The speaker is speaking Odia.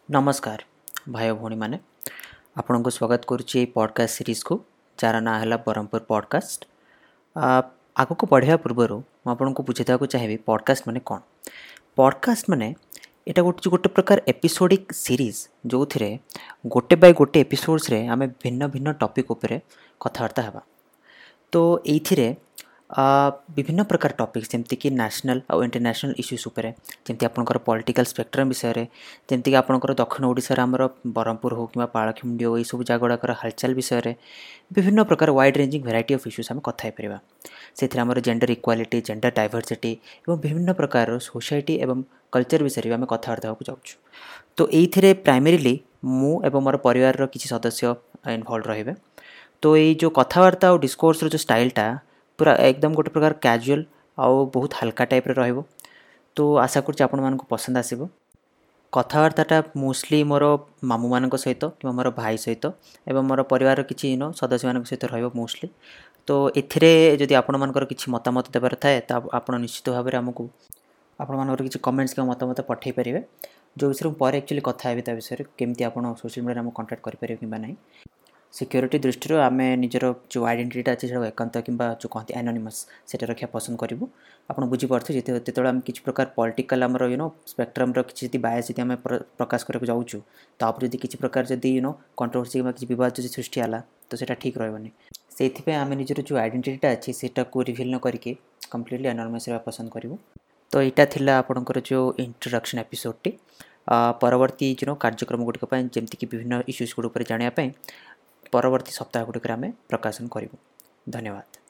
ନମସ୍କାର ଭାଇ ଭଉଣୀମାନେ, ଆପଣଙ୍କୁ ସ୍ୱାଗତ କରୁଛି ଏଇ ପଡ଼କାଷ୍ଟ ସିରିଜ୍କୁ, ଯାହାର ନାଁ ହେଲା ବ୍ରହ୍ମପୁର ପଡ଼କାଷ୍ଟ। ଆଗକୁ ବଢ଼ିବା ପୂର୍ବରୁ ମୁଁ ଆପଣଙ୍କୁ ବୁଝେଇଦେବାକୁ ଚାହିଁବି ପଡ଼କାଷ୍ଟ ମାନେ କ'ଣ। ପଡ଼କାଷ୍ଟ ମାନେ ଏଇଟା ଗୋଟେ ପ୍ରକାର ଏପିସୋଡ଼ିକ୍ ସିରିଜ୍, ଯେଉଁଥିରେ ଗୋଟେ ବାଇ ଗୋଟେ ଏପିସୋଡ଼୍ସରେ ଆମେ ଭିନ୍ନ ଭିନ୍ନ ଟପିକ୍ ଉପରେ କଥାବାର୍ତ୍ତା ହେବା। ତ ଏଇଥିରେ ବିଭିନ୍ନ ପ୍ରକାର ଟପିକ୍ସ, ଯେମିତିକି ନ୍ୟାସନାଲ୍ ଆଉ ଇଣ୍ଟରନ୍ୟାସନାଲ୍ ଇସ୍ୟୁସ୍ ଉପରେ, ଯେମିତି ଆପଣଙ୍କର ପଲିଟିକାଲ୍ ସ୍ପେକ୍ଟ୍ରମ୍ ବିଷୟରେ, ଯେମିତିକି ଆପଣଙ୍କର ଦକ୍ଷିଣ ଓଡ଼ିଶାର ଆମର ବ୍ରହ୍ମପୁର ହେଉ କିମ୍ବା ପାରଳାଖେମୁଣ୍ଡି ହେଉ, ଏଇସବୁ ଜାଗା ଗୁଡ଼ାକର ହାଲଚାଲ ବିଷୟରେ ବିଭିନ୍ନ ପ୍ରକାର wide ranging variety of issues ଆମେ କଥା ହେଇପାରିବା। ସେଥିରେ ଆମର ଜେଣ୍ଡର ଇକ୍ୱାଲିଟି, ଜେଣ୍ଡର ଡାଇଭର୍ସିଟି ଏବଂ ବିଭିନ୍ନ ପ୍ରକାରର ସୋସାଇଟି ଏବଂ କଲଚର୍ ବିଷୟରେ ବି ଆମେ କଥାବାର୍ତ୍ତା ହେବାକୁ ଯାଉଛୁ। ତ ଏଇଥିରେ ପ୍ରାଇମେରିଲି ମୁଁ ଏବଂ ମୋର ପରିବାରର କିଛି ସଦସ୍ୟ ଇନଭଲ୍ଭ ରହିବେ। ତ ଏଇ ଯେଉଁ କଥାବାର୍ତ୍ତା ଆଉ ଡିସ୍କୋର୍ସର ଯେଉଁ ଷ୍ଟାଇଲ୍ଟା ପୁରା ଏକଦମ ଗୋଟେ ପ୍ରକାର କ୍ୟାଜୁଆଲ୍ ଆଉ ବହୁତ ହାଲକା ଟାଇପ୍ର ରହିବ। ତ ଆଶା କରୁଛି ଆପଣମାନଙ୍କୁ ପସନ୍ଦ ଆସିବ। କଥାବାର୍ତ୍ତାଟା ମୋଷ୍ଟଲି ମୋର ମାମୁଁମାନଙ୍କ ସହିତ କିମ୍ବା ମୋର ଭାଇ ସହିତ ଏବଂ ମୋର ପରିବାରର କିଛି ସଦସ୍ୟମାନଙ୍କ ସହିତ ରହିବ ମୋଷ୍ଟଲି। ତ ଏଥିରେ ଯଦି ଆପଣମାନଙ୍କର କିଛି ମତାମତ ଦେବାର ଥାଏ, ତ ଆପଣ ନିଶ୍ଚିତ ଭାବରେ ଆମକୁ ଆପଣମାନଙ୍କର କିଛି କମେଣ୍ଟସ୍ କିମ୍ବା ମତାମତ ପଠାଇ ପାରିବେ, ଯେଉଁ ବିଷୟରେ ମୁଁ ପରେ ଆକ୍ଚୁଆଲି କଥା ହେବି ତା ବିଷୟରେ, କେମିତି ଆପଣ ସୋସିଆଲ୍ ମିଡ଼ିଆରେ ଆମକୁ କଣ୍ଟାକ୍ଟ କରିପାରିବେ କିମ୍ବା ନାହିଁ। ସିକ୍ୟୁରିଟି ଦୃଷ୍ଟିରୁ ଆମେ ନିଜର ଯେଉଁ ଆଇଡେଣ୍ଟିଟିଟା ଅଛି ସେଟାକୁ ଏକାନ୍ତ କିମ୍ବା ଯେଉଁ କହନ୍ତି ଆନୋନିମସ୍, ସେଇଟା ରଖିବା ପସନ୍ଦ କରିବୁ। ଆପଣ ବୁଝିପାରୁଥିବେ, ଯେତେବେଳେ ଆମେ କିଛି ପ୍ରକାର ପଲିଟିକାଲ୍ ଆମର ସ୍ପେକ୍ଟ୍ରମ୍ର କିଛି ଯଦି ବାୟାସ୍ ଯଦି ଆମେ ପ୍ରକାଶ କରିବାକୁ ଯାଉଛୁ, ତାପରେ ଯଦି କିଛି ପ୍ରକାର ଯଦି କଣ୍ଟ୍ରୋଭର୍ସି କିମ୍ବା କିଛି ବିବାଦ ଯଦି ସୃଷ୍ଟି ହେଲା, ତ ସେଇଟା ଠିକ୍ ରହିବନି। ସେଇଥିପାଇଁ ଆମେ ନିଜର ଯେଉଁ ଆଇଡେଣ୍ଟିଟିଟା ଅଛି ସେଇଟାକୁ ରିଭିଲ୍ ନ କରିକି କମ୍ପ୍ଲିଟଲି ଆନୋନିମସ୍ ରହିବା ପସନ୍ଦ କରିବୁ। ତ ଏଇଟା ଥିଲା ଆପଣଙ୍କର ଯେଉଁ ଇଣ୍ଟ୍ରୋଡକ୍ସନ୍ ଏପିସୋଡ଼ଟି। ପରବର୍ତ୍ତୀ ଯେଉଁ କାର୍ଯ୍ୟକ୍ରମ ଗୁଡ଼ିକ ପାଇଁ, ଯେମିତିକି ବିଭିନ୍ନ ଇସ୍ୟୁଜ୍ ଗୁଡ଼ିକ ଉପରେ ଜାଣିବା ପାଇଁ, ପରବର୍ତ୍ତୀ ସପ୍ତାହ ଗୁଡ଼ିକରେ ଆମେ ପ୍ରକାଶନ କରିବୁ। ଧନ୍ୟବାଦ।